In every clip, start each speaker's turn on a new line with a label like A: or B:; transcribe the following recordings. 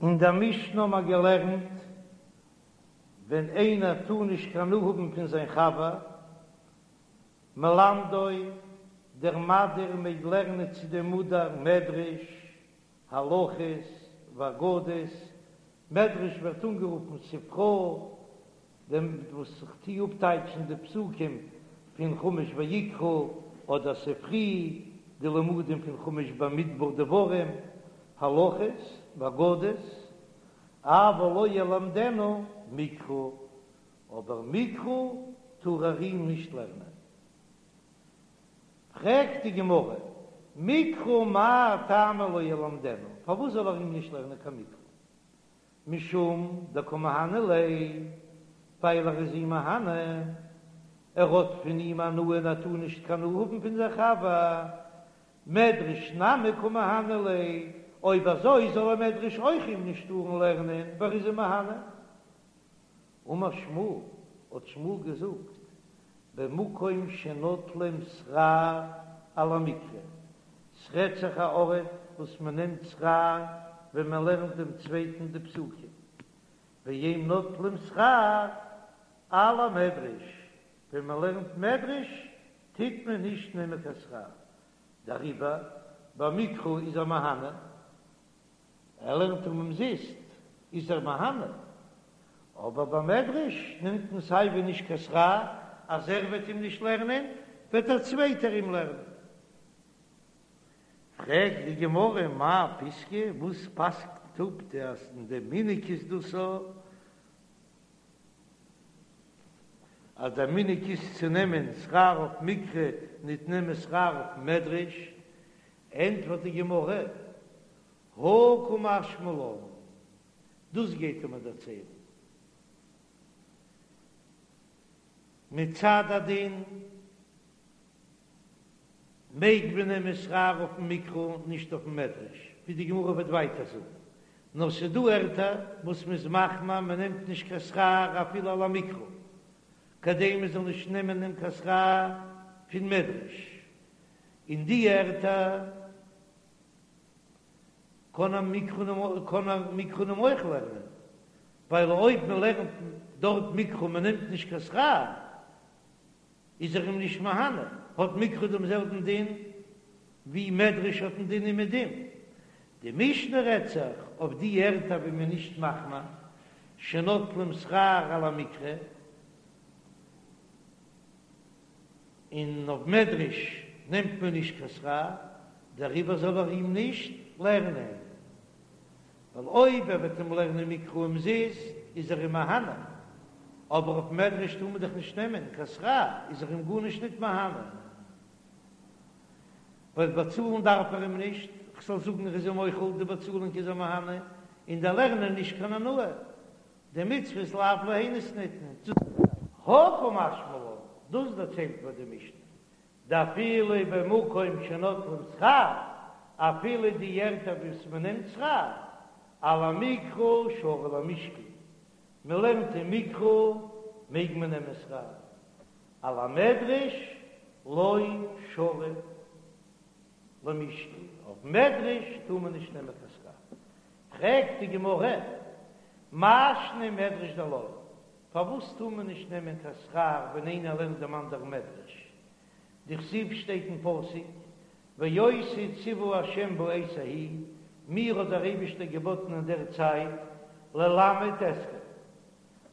A: אין דער משנה האבן מיר געלערנט, ווען איינער טאר נישט קיין הנאה האבן פון זיין חבר, מלמדו, דער מדיר מעג לערנען צו דעם מודר מדרש, הלכות, ואגדות, מדרש ווערט אנגערופן ספרא, דעם וואס איך טוה אפטייטשן די פסוקים פון חומש ויקרא, אדער ספרי, די לימודים פון חומש במדבר דברים, הלכות, ואגדות, אבל לא ילמדנו מקרא, אבער מקרא טאר ער אים נישט לערנען. פרעגט די גמרא, מקרא מאי טעמא לא ילמדנו, פארוואס זאל ער אים נישט לערנען קיין מקרא? משום דקא מהני ליה, ווייל ער איז אים מהנה, ער האט פון אים הנאה און ער טאר נישט קיין הנאה האבן פון זיין חבר, מדרש נמי קא מהני ליה, אויב אזוי זאל ער מדרש אויך אים נישט טארן לערנען, ווייל ער איז אים מהנה. אמר שמואל, האט שמואל געזאגט, במקום שנוטלים שכר על המקרא, ס'רעדט זיך א ארט וואס מען נעמט שכר ווען מען לערנט דעם צווייטן די פסוקים, ואין נוטלים שכר על המדרש, ווען מען לערנט מדרש טוט מען נישט נעמען קיין שכר, דעריבער במקרא איז ער מהנה. ער לערנט אים אומזיסט, איז ער מהנה, אבער ביי מדרש נעמט מען סיי ווי נישט קיין שכר, אז ער וועט אים נישט לערנען, וועט דער צווייטער אים לערנען. פרעגט די גמרא מאי פסקא, וואס פסק'נט אפ די אז אין די מנהג איז דאס אזוי, אז דער מנהג איז צו נעמען שכר אויף מקרא, ניט נעמען שכר אויף מדרש, ענטפערט די גמרא, הא קא משמע לן, דאס גייט ער מיר דערציילן מצד הדין מעג מען נעמען שכר אויפן מקרא נישט אויפן מדרש, ווי די גמרא וועט ווייטער זאגן, נאר ס'דא ערטער וואס מ'איז מחמיר מ'נעמט נישט קיין שכר אפילו על המקרא, כדי מ'זאל נישט נעמען קיין שכר פון מדרש, אין די ערטער קען ער מקרא קען ער מקרא אים אויך לערנען, ווייל אויב מען לערנט דארט מקרא מען נעמט נישט קיין שכר איז ער אים נישט מהנה, האט מקרא דעם זעלבן דין ווי מדרש האט דעם דין אומעדום. די משנה רעדט זיך אויף די ערטער ווי מען איז נישט מחמיר שנוטלים שכר על המקרא, און אויף מדרש נעמט מען נישט קיין שכר, דעריבער זאל ער אים נישט לערנען, ווייל אויב ער וועט אים לערנען מקרא אומזיסט איז ער אים מהנה, אבער אויף מדרש טאר מען דאך נישט נעמען קיין שכר, איז ער אים גארנישט ניט מהנה, ווייל באצאלן דארף ער אים נישט, כ'זאל זאגן ער איז אים מוחל די באצאלונג איז ער מהנה, און דער לערנען נישט קיין הנאה. די מצוות לאו ליהנות ניתנו. הא קא משמע לן, דאס דערציילט מיר די משנה, דאפילו במקום שנוטלים שכר, אפילו די ערטער וואס מען נעמט שכר, על המקרא שרי למשקל, מען לערנט אין מקרא מעג מען נעמען שכר, על המדרש לא שרי למשקל, אויף מדרש טאר מען נישט נעמען קיין שכר. פרעגט די גמרא, מאי שנא מדרש דלא, פארוואס טאר מען נישט נעמען קיין שכר ווען איינער לערנט דעם אנדערן מדרש? דכתיב שטייט אין פסוק, ואותי צוה ה' בעת ההיא, מיר האט דער אייבישטער געבאטן אין דער צייט, ללמד אתכם,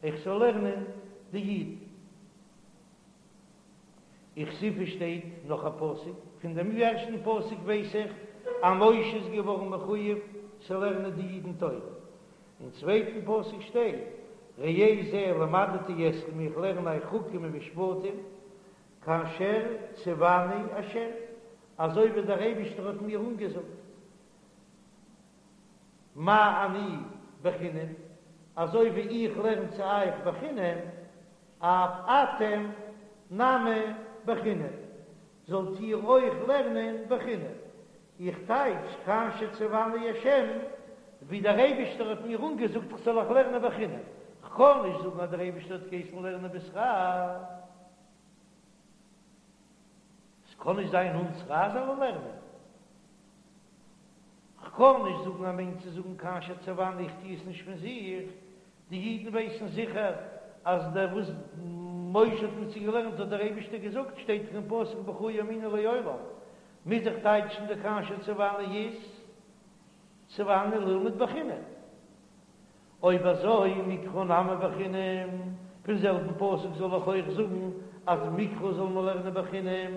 A: איך זאל לערנען די אידן. וכתיב שטייט נאך א פסוק, פון דעם ערשטן פסוק ווייס איך אז משה איז געווארן מחויב צו לערנען די אידן תורה, אין צווייטן פסוק שטייט ראה זה למדתי אתכם איך לערן אייך חוקים ומשפטים כאשר צוני ה' אזוי ווי דער אייבישטער האט מיר אנגעזאגט. מה אני בחינם, אזוי ווי איך לערן צו אייך בחינם, אף אתם נמי בחינם, זאלט איר אויך לערנען בחינם. איך טייטש כאשר צוני השם, ווי דער אייבישטער האט מיר אנגעזאגט איך זאל אייך לערנען בחינם. כ'קען נישט זאגן אז דער אייבישטער האט געהייסן לערנען בשכר. ס'קען נישט זיין אן שכר זאל ער לערנען. כ'קען נישט זאגן ער מיינט צו זאגן כאשר צוני איך טו עס נישט פון זיך, די אידן ווייסן זיכער אז דער וואס משה האט מיט זיי געלערנט האט דער אייבישטער געזאגט, שטייט דאך אין פסוק בך יאמינו לעולם, מוז איך טייטשן די כאשר צוני איז צוני ללמוד בחינם. אויב אזוי מקרא נמי בחינם, פון זעלבן פסוק זאל איך אויך זאגן אז מקרא זאל מען לערנען בחינם?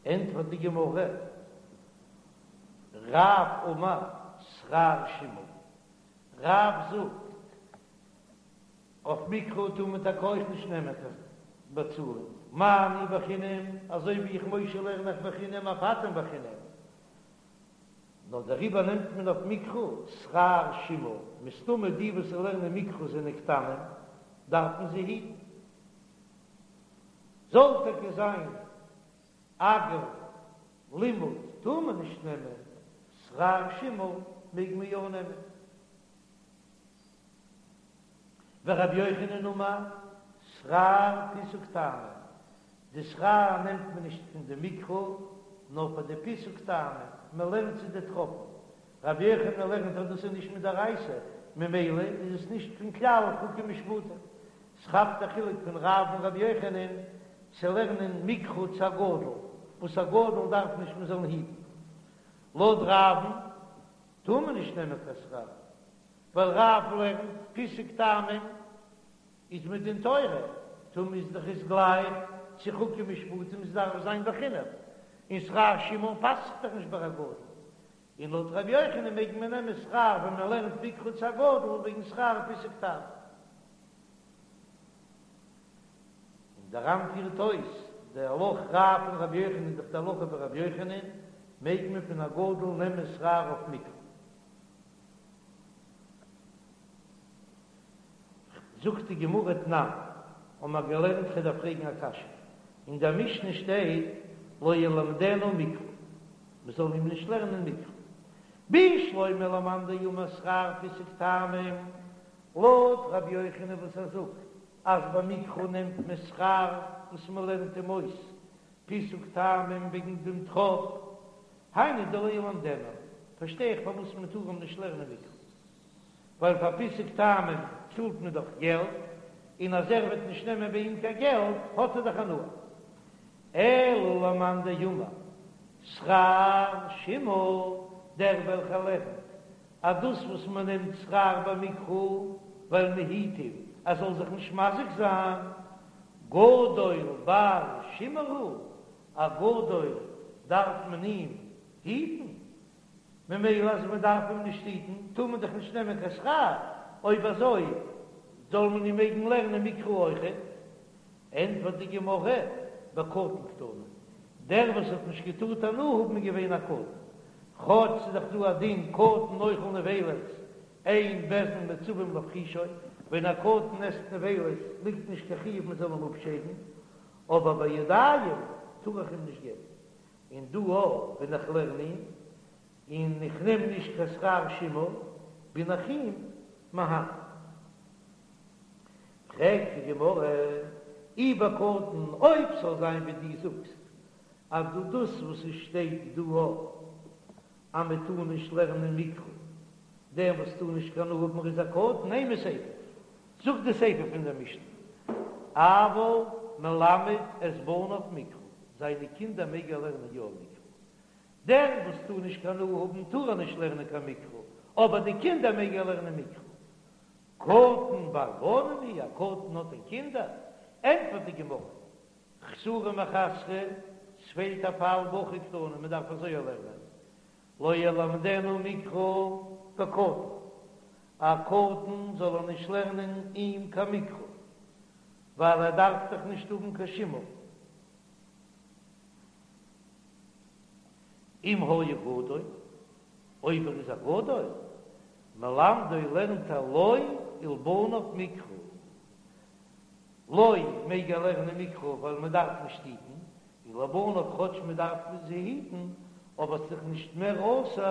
A: ענטפערט די גמרא, רב אמר שכר שימור, רב זאגט, אויף מקרא טאר מען טאקע אויך נישט נעמען קיין באצאלונג, מה אני בחינם, אזוי ווי איך משה לערן איך בחינם אף אתם בחינם, נאר דעריבער נעמט מען אויף מקרא שכר שימור, מסתמא די וואס לערנען מקרא זענען קטנים, דארף מען זיי היטן. זאל טאקע זיין אגר לימוד טאר מען נישט נעמען, שכר שימור מעג מען יא נעמען. ורבי יוחנן אמר, שכר פיסוק טעמים, די שכר נעמט מען נישט פון די מקרא, נאר פאר די פיסוק טעמים, מען לערנט צו די טראפן. רבי יוחנן לערנט אז דאס איז נישט מדאורייתא, ממילא איז עס נישט פון כלל חוקים ומשפטים. ס'כאפט א חילוק פון רב און רבי יוחנן צו לערנען מקרא צו א גדול, וואס א גדול דארף נישט מען זאל אים היטן. לויט רב'ן טאר מען נישט נעמען קיין שכר, ווייל רב לערנט פיסוק טעמים איז מדין תורה, טא מוז דאך איז גלייך צו חוקים ומשפטים עס דארף זיין בחינם, און שכר שימור פאסט זיך דאך נישט ביי א גדול, און לויט ר' יוחנן מעג מען נעמען שכר ווען מען לערנט מקרא צו א גדול וועגן שכר פיסוק טעמים. און דער ר"ן פירט אויס די הלכה רב און רבי יוחנן איז דאך די הלכה ווי רבי יוחנן, מעג מען פון א גדול נעמען שכר אויף מקרא. זאגט די גמרא תנן, האבן מיר געלערנט כ'דארף פרעגן א קשיא, אין דער משנה שטייט לא ילמדנו מקרא, מען זאל אים נישט לערנען מקרא, בשלמא למאן דאמר שכר פיסוק טעמים, לויט רבי יוחנן וואס ער זאגט אז ביי מקרא נעמט מען שכר וואס מען לערנט אים אויס פיסוק טעמים וועגן דעם טראפ, היינו דלא ילמדנו, פארשטיי איך פארוואס מען טאר אים נישט לערנען מקרא, ווייל פאר פיסוק טעמים צאלט מען דאך געלט, און אז ער וועט נישט נעמען ביי אים קיין געלט האט ער דאך הנאה. אלא למאן דאמר שכר שימור, דער וועלכער לערנט אז דאס וואס מען נעמט שכר במקרא ווייל מען היט אים ער זאל זיך נישט מזיק זיין, גדול בר שימור הוא, א גדול דארף מען אים היטן, ממילא אז מען דארף אים נישט היטן טאר מען דאך נישט נעמען קיין שכר, אויב אזוי זאל מען אים מעגן לערנען מקרא אויכעט. ענטפערט די גמרא, בקטן קתני, דער וואס האט נישט געטארט הנאה האבן איז געווען א קטן, כאטש ס'איז דאך דא א דין קטן אוכל נבילות אין בית דין מצווים להפרישו, ווען א קטן עסט נבילות ליגט נישט קיין חיוב מען זאל אים אפשיידן, אבער בידיים טאר איך אים נישט געבן, און דא אויך ווען איך לערן אים און איך נעם נישט קיין שכר שימור בין איך אים מהנה. פרעגט די גמרא, אי בקטן, אויב ס'זאל זיין ווי דו זאגסט אז דא דאס וואס עס שטייט דא אז מען טאר נישט לערנען מקרא, דער וואס טאר נישט קיין הנאה האבן איז א קטן, אימא סיפא, זאגט די סיפא פון דער משנה, אבל מלמד את בניו מקרא, זיינע קינדער מעג ער לערנען יא מקרא, דער וואס טאר נישט קיין הנאה האבן טאר ער נישט לערנען קיין מקרא, אבער די קינדער מעג ער לערנען מקרא. קטן בר בנים הוא, א קטן האט דען קינדער? ענטפערט די גמרא, חסורי מחסרא, ס'פעלט א פאל בהכי קתני, מען דארף אזוי לערנען, לא ילמדנו מקרא בקטן, א קטן זאל ער נישט לערנען אים קיין מקרא, ווייל ער דארף דאך נישט האבן קיין שימור. אם היה גדול, אויב ער איז א גדול, מלמדו לערנט ער לו ולבניו מקרא. לו מעג ער לערנען מקרא ווייל מען דארף נישט היטן, און לבניו כאטש מען דארף זיי היטן, אבער ס'איז דאך נישט מער אסור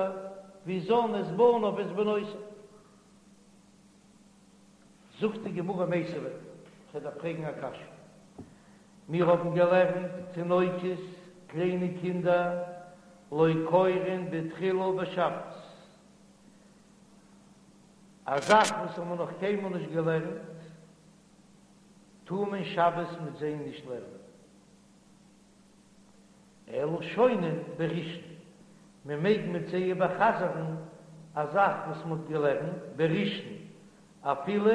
A: ווי זן את בניו ואת בנותיו. זאגט די גמרא מיתיבי, כ'דארף פרעגן א קשיא. מיר האבן געלערנט תינוקות, קליינע קינדער. לא קורין בתחילה בשבת, א זאך וואס האבן מיר נאך קיינמאל נישט געלערנט, טאר מען שבת מיט זיי נישט לערנען. אלא שונין בראשון, מען מעג מיט זיי איבערחזר'ן א זאך וואס מען האט געלערנט בראשון אפילו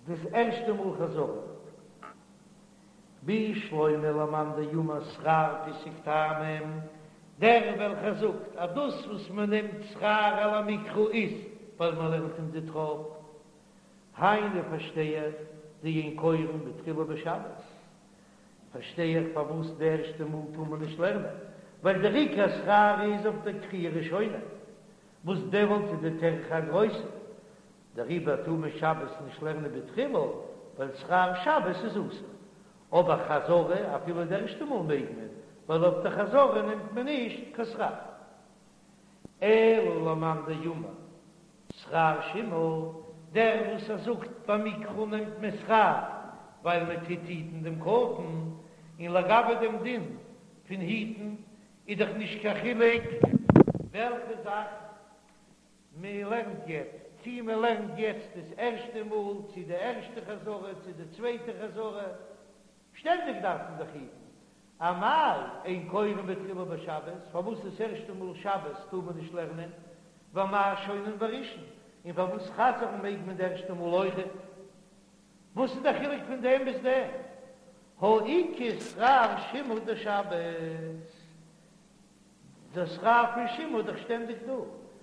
A: דאס ערשטע מאל חזרה. בשלמא למאן דאמר שכר פיסוק טעמים, דער וועלכער זאגט אז דאס וואס מען נעמט שכר על המקרא איז ווייל מען לערנט אים די טראפ, היינו פארשטיי איך דאין קורין בתחילה בשבת, פארשטיי איך פארוואס די ערשטע מאל טאר מען נישט לערנען, ווייל דער עיקר שכר איז אויף דער קריאה ראשונה, וואס דעמאלט איז די טרחה א גרויסע, דעריבער טאר מען שבת נישט לערנען בתחילה, ווייל שכר שבת איז אסור. אבער חזרה אפילו די ערשטע מאל מעג מען, ווייל אויף די חזרה נעמט מען נישט קיין שכר. אלא למאן דאמר שכר שימור, דער וואס ער זאגט ביי מקרא נעמט מען שכר ווייל מען טוט היטן דעם קטן, און לגבי דעם דין פון היטן איז דאך נישט קיין חילוק וועלכע זאך מען לערנט יעצט, צי מען לערנט יעצט דאס ערשטע מאל, צי די ערשטע חזרה, צי די צווייטע חזרה, שטענדיג דארף מען דאך היטן. אמאי אין קורין בתחילה בשבת, פארוואס דאס ערשטע מאל שבת טאר מען נישט לערנען, ואמאי שונין בראשון, און פארוואס חזר'ן מעג מען די ערשטע מאל אויכעט? וואס איז דער חילוק פון דעם ביז דעם? הא איכא שכר שימור דשבת. דער שכר פון שימור איז דאך שטענדיג דא,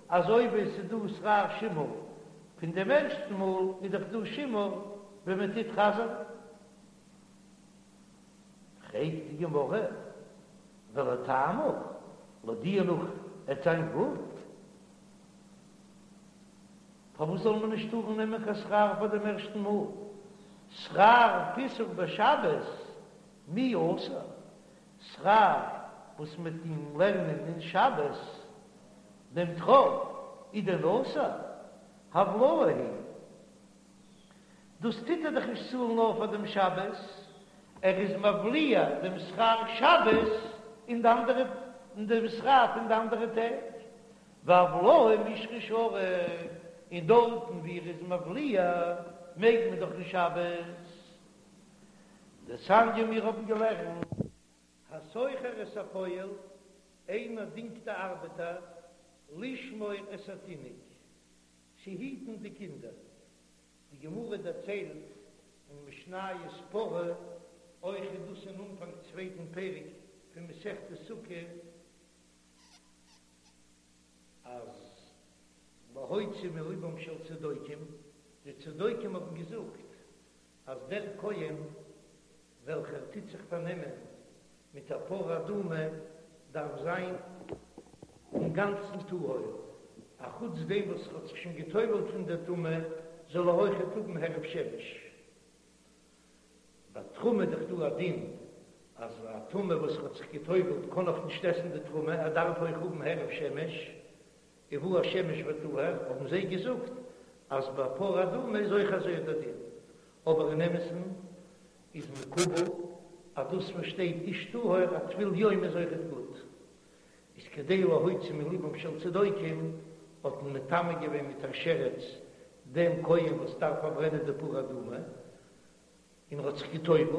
A: אזוי ווי עס איז דא שכר שימור פון דעם ערשטן מאל, איז דאך דא שימור ווען מען טוט חזר'ן. פרעגט די גמרא, ולטעמיך, לויט דיר נאך עט זיין גוט, פארוואס זאל מען נישט טארן נעמען קיין שכר פאר דעם ערשטן מאל? שכר פיסוק בשבת מי אסור? שכר וואס מ'טוט אים לערנען אין שבת דעם טראפ איז דען אסור? הבלעה היא. דאס טוט ער דאך נישט צאלן נאר פאר דעם שבת, ער איז מבליע דעם שכר שבת אין די אנדערע אין דעם שכר פון די אנדערע טעג, והבלעה מישרא שרי, און דארטן ווי ער איז מבליע מעג מען דאך אין שבת. דתניא מיר האבן געלערנט. השוכר את הפועל, איינער דינגט א ארבעטער, לשמור את התינוק, צו היטן די קינדער. די גמרא דערציילט אין משניות פרה, אויך איז דאס אין אנפאנג צווייטן פרק פון מסכת סוכה, אז להוציא מלבם של צדוקים, די צדוקים האבן געזאגט אז דער כהן וועלכער טוט זיך פארנעמען מיט א פרה אדומה דארף זיין אינגאנצן טהור, אחוץ דעם וואס ער האט זיך שוין גע'טובל'ט פון דער טומאה, זאל ער אויכעט האבן הערב שמש. ביי תרומה איז דאך דא א דין אז א טמא וואס האט זיך גע'טובל'ט קען נאך נישט עסן די תרומה, ער דארף אויך האבן הערב שמש, ובא השמש וטהר, האבן זיי געזאגט אז ביי פרה אדומה איז אויך אזוי דער דין, אבער אין אמת'ן איז מקובל אז דאס וואס שטייט איש טהור א טבול יום איז אויכעט גוט, איז כדי להוציא מלבם של צדוקים האט מען מטמא געווען מיט א שרץ דעם כהן וואס דארף פארברענען די פרה אדומה, און ער האט זיך גע'טובל'ט,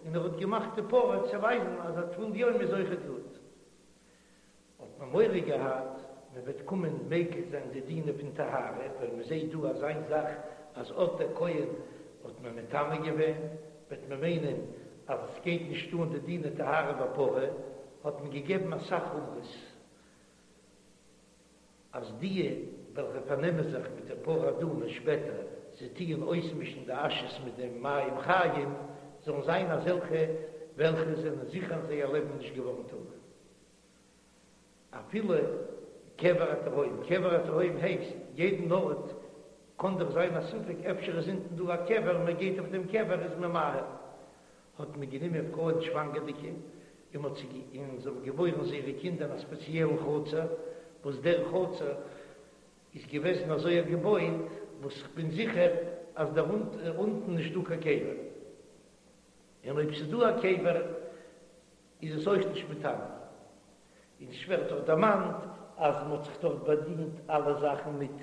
A: און ער האט געמאכט די פרה צו ווייזן אז א טבול יום איז אויכעט גוט. האט מען מורא געהאט מען וועט קומען מקיל זיין די דינים פון טהרה, ווייל מען זעט דא אזא זאך אז אט דער כהן האט מען מטמא געווען, וועט מען מיינען אז עס גייט נישט אן די דיני טהרה בפרה, האט מען געגעבן אסאך חומרות אז די וועלכע פארנעמען זיך מיט די פרה אדומה שפעטער, זיי טוען אויסמישן די אשעס מיט דעם מים חיים, זאלן זיין אזעלכע וועלכע זענען זיכער אין זייער לעבן נישט געווארן טמא. אפילו קבר התהום, קבר התהום הייסט יעדן ארט קאן דאך זיין א ספק אפשר איז אונטן דא א קבר, מען גייט אויף דעם קבר איז מען מאהיל, האט מען גענומען פרויען שוואנגערדיגע און מען האט זיי און זיי האבן געבוירן זייערע קינדער אין א ספעציעלן חצר, וואס דער חצר איז געוועזן אזוי געבויט וואס כ'בין זיכער אז דער אונטן נישט דא קיין קבר, און אויב ס'איז דא א קבר איז עס אויך נישט מטמא. און ס'ווערט דאך דערמאנט אז מ'האט זיך דארט באדינט אלע זאכן מיט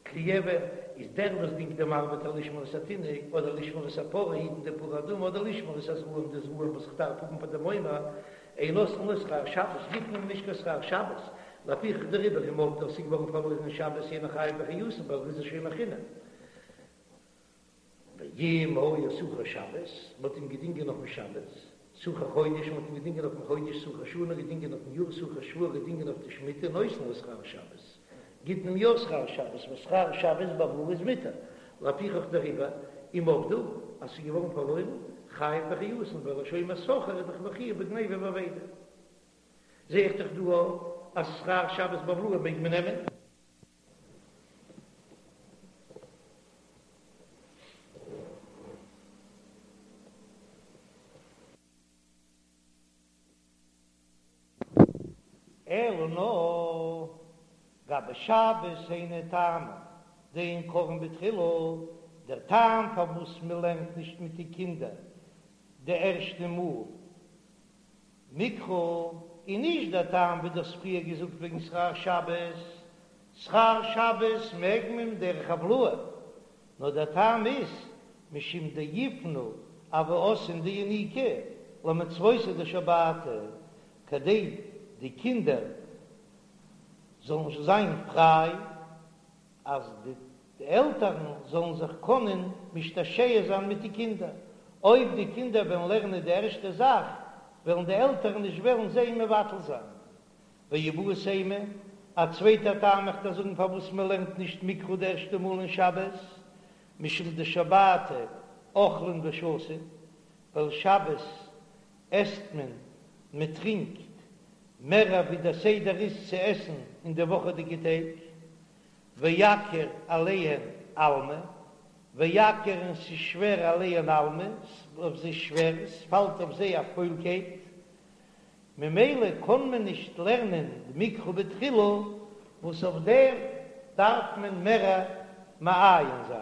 A: כלי אבן, איז דער וואס דינגט דעם ארבעטער לשמור את התינוק, אדער לשמור את הפרה, היטן די פרה אדומה, אדער לשמור את הזרעים, די זרעים וואס כ'דארף האבן פאר דעם עומר, אין נותנין לו שכר שבת, גיט מען אים נישט קיין שכר שבת, לפיכך דעריבער אם אבדו ס'איז געווארן פארלוירן אין שבת אינו חייב באחריותן ווייל ער איז א שומר חינם. ואם היה שכיר שבת, מ'האט אים געדינגען אויפן שבת, שכיר חודש, מ'האט אים געדינגען אויפן חודש, שכיר שנה, געדינגען אויפן יאר, שכיר שבוע, געדינגען אויף די שמיטה, נותן לו שכר שבת, גיט מען אים יא שכר שבת, ווייל שכר שבת בהבלעה איז מותר, לפיכך דעריבער, אם אבדו, אז ס'איז געווארן פארלוירן, חייב באחריותן, ווייל א שומר שכר איז דאך מחויב בגניבה ואבידה. זע איך דאך דא אז שכר שבת בהבלעה מעג מען נעמען. אלא נאר גבי שבת היינו טעמא דאין קוראין בתחילה, דער טעם פארוואס מען לערנט נישט מיט די קינדער די ערשטע מאל מקרא איז נישט דער טעם ווי דו האסט פריער געזאגט וועגן שכר שבת, שכר שבת מעג מען דרך הבלעה, נאר דער טעם איז משום דיפנו אבהתין דיניקי למצוותא דשבתא, כדי די קינדער זאלן זיין פריי אז די עלטערן זאלן זיך קענען משתעשע זיין מיט די קינדער, אויב די קינדער וועלן לערנען די ערשטע זאך, וועלן די עלטערן נישט וועלן זיי מבטל זיין. ואיבעית אימא, א צווייטע טעם איך דיר זאגן פארוואס מען לערנט נישט מקרא די ערשטע מאל אין שבת, משום דשבתא אוכלין ושותין, ווייל שבת עסט מען, מען טרינקט, מער ווי דער סדר איז צו עסן אין די וואכעדיגע טעג. ויקיר עליהן עלמא, ויקיר און ס'איז שווער עליהן עלמא, אויף זיי שווער, ס'פאלט אויף זיי א פוילקייט, ממילא קען מען נישט לערנען מקרא בתחילה, וואס אויף דעם דארף מען מער מעיין זיין,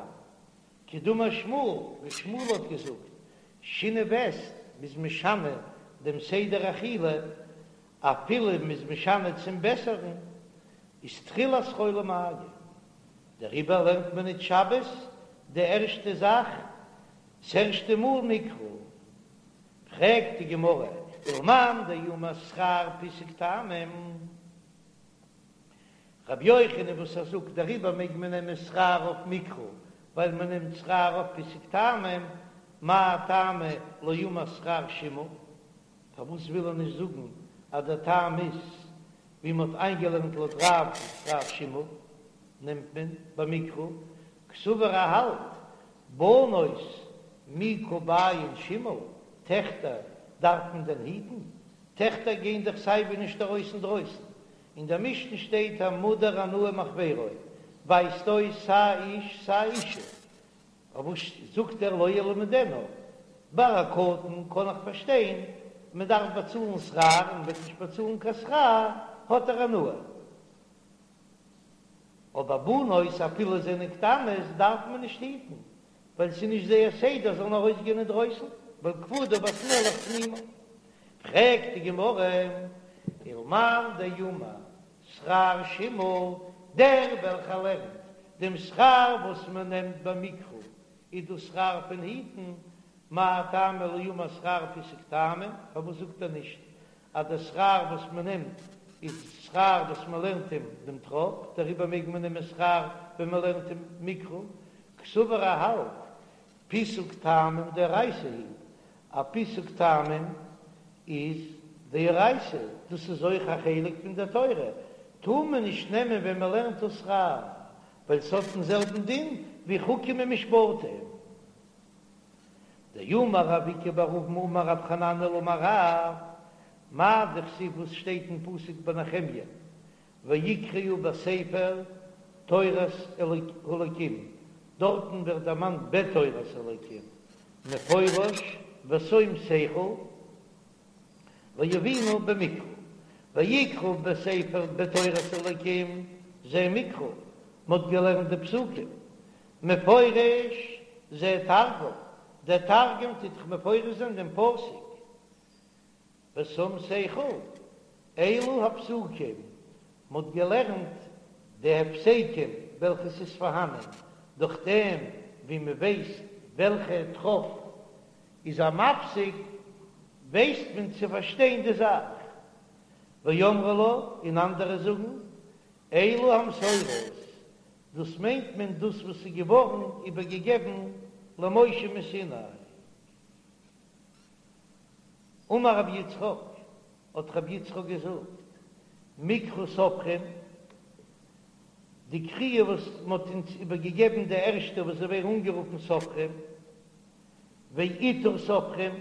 A: כדאמר שמואל, ווי שמואל האט געזאגט, שינוי וסת, מ'איז משנה דעם סדר אכילה, אפילו מ'איז משנה צום בעסערן, איז תחילת חולי מיא. דעריבער לערנט מען ניט שבת די ערשטע זאך, ס'ערשטע מאל מקרא. פרעגט די גמרא, ולמאן דאמר שכר פיסוק טעמים? רבי יוחנן וואס ער זאגט דעריבער מעג מען נעמען שכר אויף מקרא, ווייל מען נעמט שכר אויף פיסוק טעמים, מאי טעמא לא אמר שכר שימור? פארוואס וויל ער נישט זאגן אז דער טעם איז ווי מען האט איינגעלערנט לויט רב שכר שימור נעמט מען ביי מקרא, קסבר ער האלט בנות מי קא בעיין שימור, טעכטער דארף מען דען היטן? טעכטער גייען דאך סייווי נישט ארויס אינדרויסן, אין דער משנה שטייט המודר הנאה מחבירו, ווייזט אויס סיי איש סיי אישה, פארוואס זאגט ער לא ילמדנו? ביי א קטן קען איך פארשטיין, מען דארף באצאלן שכר און מען וועט נישט באצאלן קיין שכר האט ער הנאה, אבער בנות אפילו זענען קטנות דארף מען נישט היטן, ווייל ס'איז נישט זייער סדר זאלן ארויסגיין אינדרויסן, ווייל כבודה בת מלך פנימה. פרעגט די גמרא, ולמאן דאמר שכר שימור, דער וועלכער לערנט דעם שכר וואס מען נעמט ביי מקרא איז דאס שכר פון היטן, מאי טעמא לא אמר שכר פיסוק טעמים, פארוואס זאגט ער נישט אז דער שכר וואס מען נעמט איז שכר וואס מען לערנט אים דעם טראפ, דעריבער מעג מען נעמען שכר ווען מען לערנט אים מקרא, קסבר ער האלט פיסוק טעמים דאורייתא הוא, א פיסוק טעמים איז דאורייתא, דאס איז אויך א חלק פון דער תורה, טאר מען נישט נעמען ווען מען לערנט דאס שכר, ווייל ס'האט דעם זעלבן דין ווי חוקים ומשפטים. דאמר רב איקא בר אבין אמר רב חננאל אמר רב, מאי דכתיב וואס שטייט אין פסוק ביי נחמיה, ויקראו בספר תורת אלקים, דארטן ווערט דערמאנט בתורת אלקים, מפורש ושום שכל ויבינו במקרא, ויקראו בספר בתורת אלקים זה מקרא, מ'האט געלערנט די פסוקים, מפורש זה תרגום, דער תרגום טוט דאך מפרש זיין דעם פסוק, ושום שכל. אלו הפסוקים, מ'האט געלערנט די הפסקים וועלכע ס'איז פארהאנען, דורך דעם ווי מ'ווייסט וועלכע טראפ איז א מפסיק, ווייסט מען צו פארשטיין די זאך. ואמרי לה, און אנדערע זאגן, אלו המסורות, דאס מיינט מען דאס וואס איז געווארן איבערגעגעבן למשה מסיני. אמר רבי יצחק, האט רבי יצחק געזאגט, מקרא סופרים, די קריאה וואס מען האט אונז איבערגעגעבן די ערשטע וואס זיי ווערן אנגערופן סופרים, ועיטור סופרים,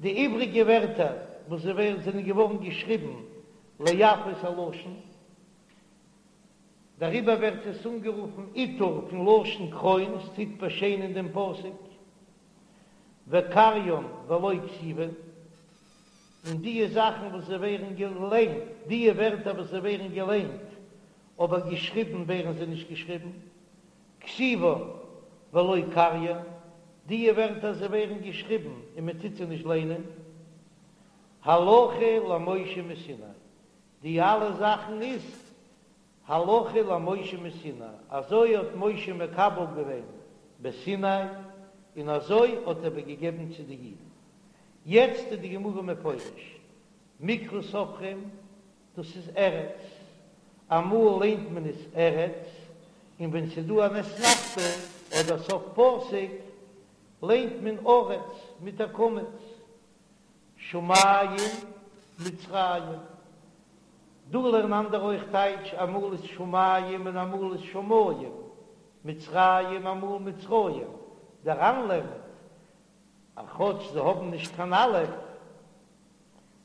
A: די איבריגע ווערטער וואס זיי ווערן זענען געווארן געשריבן ליפות הלשון, דעריבער ווערט עס אנגערופן עיטור פון לשון קרוין, עס טוט באשיינען דעם פסוק, וקריין ולא כתיבן, און דיע זאכן וואס זיי ווערן געליינט, דיע ווערטער וואס זיי ווערן געליינט, אבער געשריבן ווערן זיי נישט געשריבן, כתיבן ולא קריין, דיע ווערטער זיי ווערן געשריבן און מען טוט זיי נישט ליינען, הלכה למשה מסיני, די אלע זאכן איז הלכה למשה מסיני, אזוי האט משה מקבל געווען בסיני, און אזוי האט ער איבערגעגעבן צו די אידן. יעצט איז די גמרא מפרש, מקרא סופרים, דאס איז ארץ, אמאל ליינט מען עס ארץ, און ווען ס'איז דא אן אתנחתא אדער סוף פסוק ליינט מען ארץ מיט א קמץ, שמים מצרים, דא לערנען אנדערע אויך טייטש, אמאל איז שמים און אמאל איז שמים, מצרים אמאל מצרים, דער ר"ן לערנט אז כאטש זיי האבן נישט קיין אלף,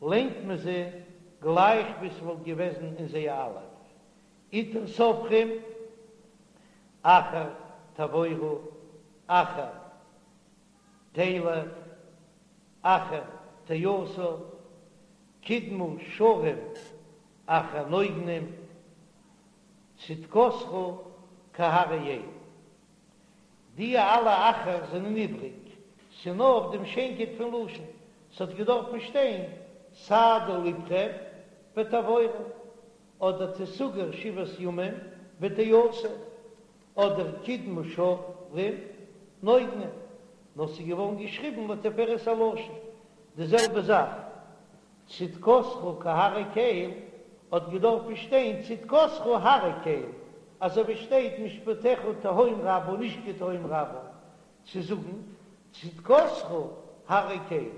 A: ליינט מען זיי גלייך ווי ס'וואלט געוועזן אין זיי א אלף. עיטור סופרים, אחר תעבורו, אחר תלך, אחר תאסף, קדמה שרים אחר נוגנים, צדקתך כהררי אל. די אלע אחר זענען איבריג, ס'נאר אויף דעם שיינקייט פון לשון, ס'האט געדארפן שטיין סעדו לבכם ותעבורו, אדער תסגר שבעת ימים ותאסף, אדער קדמה שרים נוגנים, נאר ס'איז געווארן געשריבן לתפארת הלשון, די זעלבע זאך צדקתך כהררי קל האט געדארפן שטיין צדקתך הרי קל, אזוי ווי שטייט משפטיך תהום רבה נישט כתהום רבה, צו זאגן צדקתך הרי קל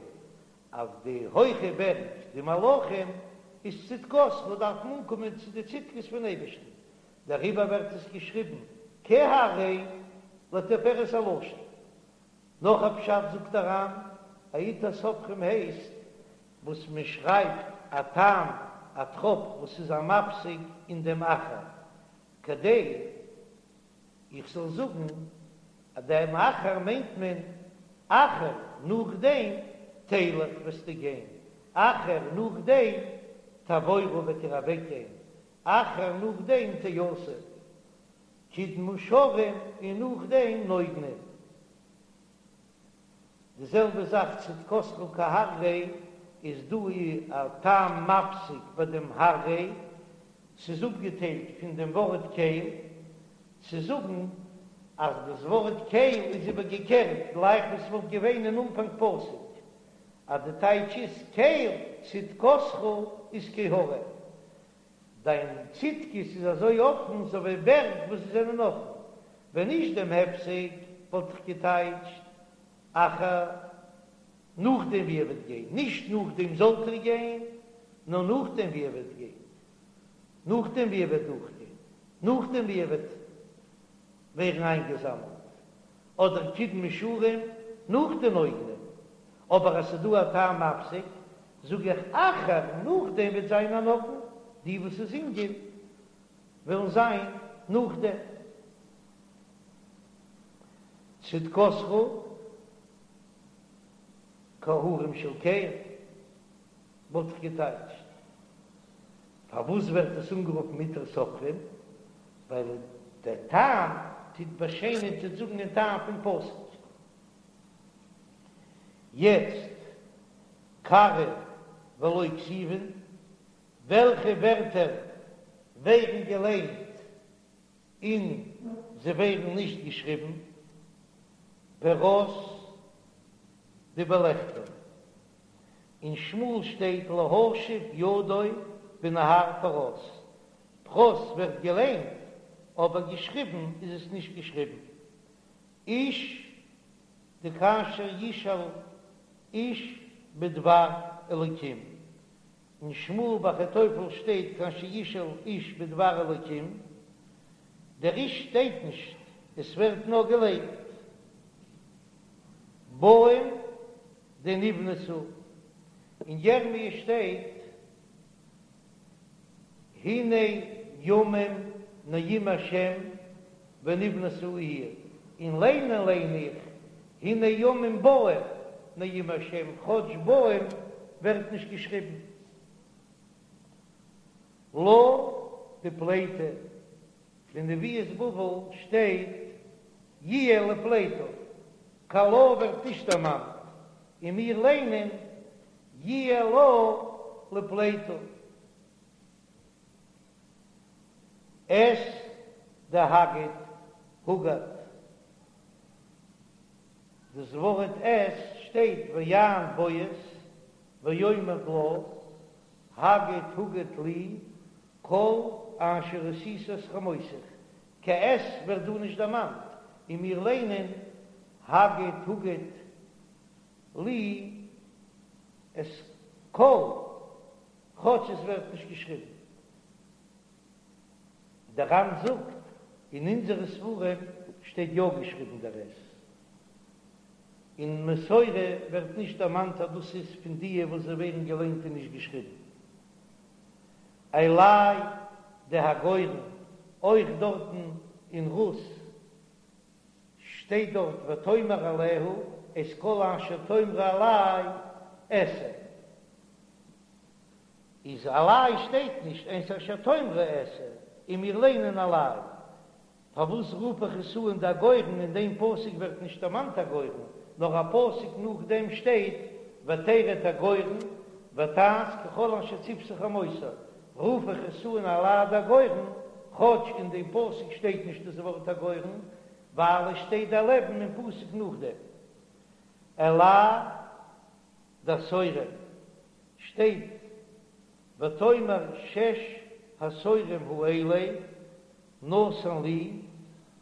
A: אז די הויכע בערג די מלאכים איז צדקתך דארף מען אנקומען צו די צדקות פון אייבערשטן, דעריבער ווערט עס געשריבן כהררי לתפארת הלשון. נאך א פשט זאגט דער ר"ן, א עיטור סופרים הייסט וואס מען שרייבט א טעם א טראפ וואס איז א מפסיק אין דעם אחר, כדי איך זאל זאגן אז דעם אחר מיינט מען אחר נאכדעם תלך וועסטו גיין, אחר נאכדעם תעבורו וועט איר אוועקגיין, אחר נאכדעם תאסף קדמה שרים און נאכדעם נוגנים. די זעלבע זאך צדקתך כהררי איז דא א טעם מפסיק ביי דעם הררי, ס'איז אפגעטיילט פון דעם ווארט קל, צו זאגן אז דאס ווארט קל איז איבערגעקערט גלייך ווי ס'וואלט געווען אין אנפאנג פסוק, אז די טייטש איז קל צדקתך איז כהרים. דיין צדקות איז אזוי אפן אזוי ווי בערג וואס זיי זענען אפן. ווען נישט דעם הפסק וואלט איך געטייטשט אחר נאכדעם ווי ער וועט גיין, נישט נאכדעם זאלט איר גיין, נאר נאכדעם ווי ער וועט גיין, נאכדעם ווי ער וועט דורכגיין, נאכדעם ווי ער וועט ווערן איינגעזאמלט, אדער קדמה שרים נאך די נוגנים, אבער אז ס'איז דא א טעם מפסיק, זאג איך אחר נאכדעם וועט זיין א נגן, די וואס זינגען וועלן זיין נאכדעם. צדקתך כהרים של קל וואלט איך געטייטשט. פארוואס ווערט עס אנגערופן עיטור סופרים? ווייל דער טעם טוט באשיינען טוט זאגן דעם טעם פון פסוק. יעצט קרי ולא כתיבן, וועלכע ווערטער ווערן געליינט און זיי ווערן נישט געשריבן? פרת דבלכתו. אין שמואל שטייט להשיב ידו בנהר פרת. פרת ווערט געליינט אבער געשריבן איז עס נישט געשריבן. איש דכאשר ישאל איש בדבר אלוקים. אין שמואל ביי אחיתופל שטייט כאשר ישאל איש בדבר אלוקים, דער איש שטייט נישט, עס ווערט נאר געליינט באים דנבנתה, אין ירמי' שטייט הנה ימים נאום השם ונבנתה העיר, און ליינען ליין איך הנה ימים באים נאום השם, כאטש באים ווערט נישט געשריבן. לה דפליטה, אין נביאות בבל שטייט יהיה לפליטה, קיין לה ווערט נישט דערמאנט, און מיר ליינען יהיה לה לפליטה. את דהגיד הוגד, דאס ווארט את שטייט ויען בועז ויאמר לה הגד הוגד לי כל אשר עשית את חמותך, קיין את ווערט דא נישט דערמאנט, און מיר ליינען הגד הוגד לי את כל כאטש עס ווערט נישט געשריבן. דער ר"ן זאגט, אין אונזערע ספרים שטייט יא געשריבן דער את. אין מסורה ווערט נישט דערמאנט אז דאס איז פון דיע וואס זיי ווערן געליינט און נישט געשריבן. אלי דהגורן, אויך דארטן אין רות שטייט דארט ותאמר אליה את כל אשר תאמרי אלי אעשה. איז אלי שטייט נישט את אשר תאמרי אעשה און מיר ליינען אלי. פארוואס רוף איך עס אן דהגורן אין דעם פסוק ווערט נישט דערמאנט הגורן נאר א פסוק נאכדעם שטייט ותרד הגורן ותעש ככל אשר צותה חמותה רוף איך עס אן אלי דהגורן כאטש אין דעם פסוק שטייט נישט דאס ווארט הגורן ווייל עס שטייט דערלעבן אין פסוק נאכדעם אלי דהשעורים שטייט ותאמר שש השעורים האלה נתן לי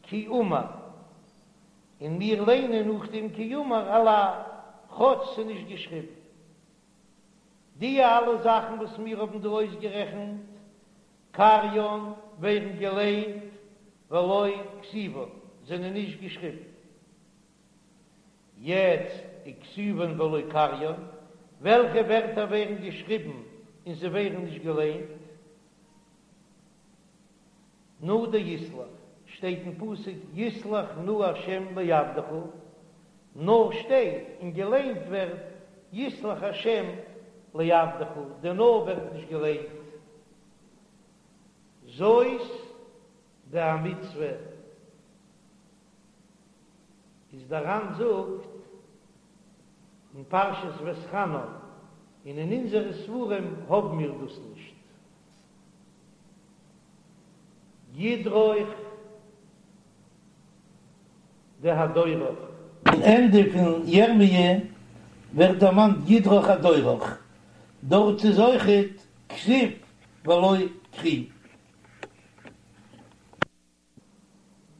A: כי אמר, און מיר ליינען נאכדעם כי אמר אלי, כאטש ס'איז נישט געשריבן. די אלע זאכן וואס מיר האבן דא אויסגערעכנט, קריין ווערן געליינט ולא כתיבן, זענען נישט געשריבן. יעצט וכתיבן ולא קריין, וועלכע ווערטער ווערן געשריבן און זיי ווערן נישט געליינט? נא דיסלח, שטייט אין פסוק יסלח נא ה' לעבדך, נא שטייט און געליינט ווערט יסלח ה' לעבדך, די נא ווערט נישט געליינט. זאת דהמצוה. איז דער ר"ן זאגט אין פרשת ואתחנן, און אין אונזערע ספרים האבן מיר דאס נישט. ידרוך דהדורך. אין ענדע פון ירמיה ווערט דערמאנט ידרוך הדורך, דארט איז אויכעט כתיב ולא קרי.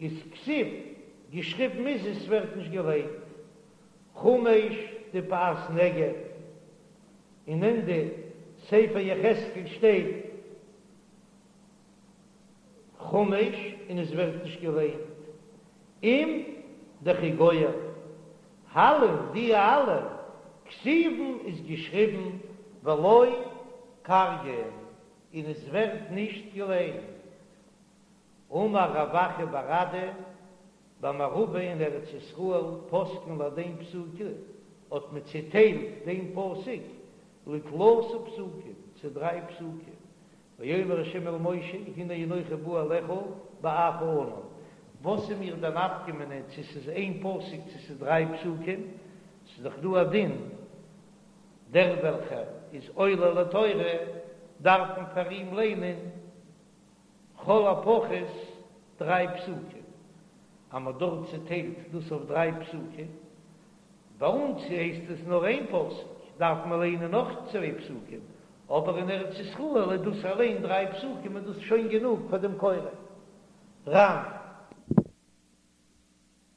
A: איז כתיב, געשריבן איז עס ווערט נישט געליינט. חמש דפאת נגב, אין ענדע ספר יחזקאל שטייט חמש און עס ווערט נישט געליינט. עם דכי גוער, הלין די אלע כתיבן איז געשריבן ולא קריין און עס ווערט נישט געליינט. אמר רב אחא בר אדא, במערבא אין ארץ ישראל פסקין להדין פסוקא, האט מען צעטיילט דעם פסוק לתלתא פסוקים, צו דריי פסוקים, ויאמר ה' אל משה הנה אנכי בא אליך בעב הענן, וואס איז מיר די נפקא מינה צו ס'איז איין פסוק צו ס'איז דריי פסוקים, ס'איז דאך דא א דין דער וועלכער איז עולה לתורה. דארף מען פאר אים ליינען לכל הפחות דריי פסוקים, אז מ'האט דארט צעטיילט דאס אויף דריי פסוקים, ביי אונז הייסט עס נאר איין פסוק, דארף מען ליינען נאך צוויי פסוקים, אבער אין ארץ ישראל איז דאס אליין דריי פסוקים איז דאס שוין גענוג פאר דעם קורא. ר"ן.